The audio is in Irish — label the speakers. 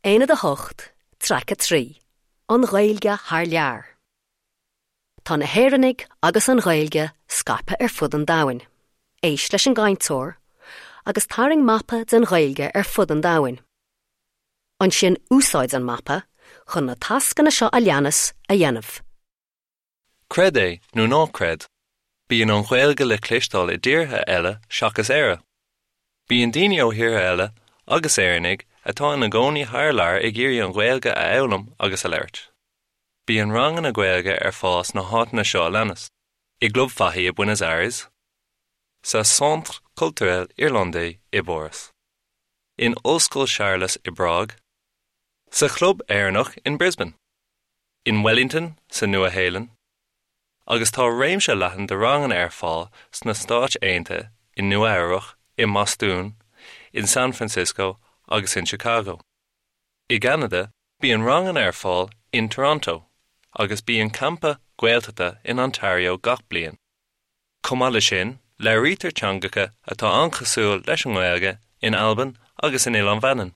Speaker 1: Aonad 8, Traic 3, An Ghaeilge thar lear. Tá na hÉireannaigh agus an Ghaeilge scaipthe ar fud an domhain. Éist leis an gcainteoir agus tarraing mapa den Ghaeilge ar fud an domhain. Ansin úsáid an mapa chun na tascanna seo a leanas a dhéanamh.
Speaker 2: Creid é nó ná creid, bíonn an Ghaeilge le cloisteáil i dtíortha eile seachas Éire. Bíonn daoine ó thíortha eile agus Éireannaigh atá ina gcónaí thar lear ag iarraidh an Ghaeilge a fhoghlaim agus a labhairt. Bíonn ranganna Gaeilge ar fáil sna háiteanna seo a leanas, i gClub Fahy i Buenos Aires, sa Centre Culturel Irlandais i bPáras, in Ollscoil Séarlas i bPrág, sa Chlub Éireannach in Brisbane, in Wellington sa Nua-Shéalainn, agus tá réimse leathan de ranganna ar fáil sna Stáit Aontaithe, i Nua-Eabhrac, i mBostún, in San Francisco agus in Chicago. I gCeanada, bíonn ranganna ar fáil in Toronto, agus bíonn campa Gaeltachta in Ontario gach bliain. Chomh maith leis sin, labhraítear teangacha atá an-chosúil leis an nGaeilge in Albain agus in Oileán Mhanann.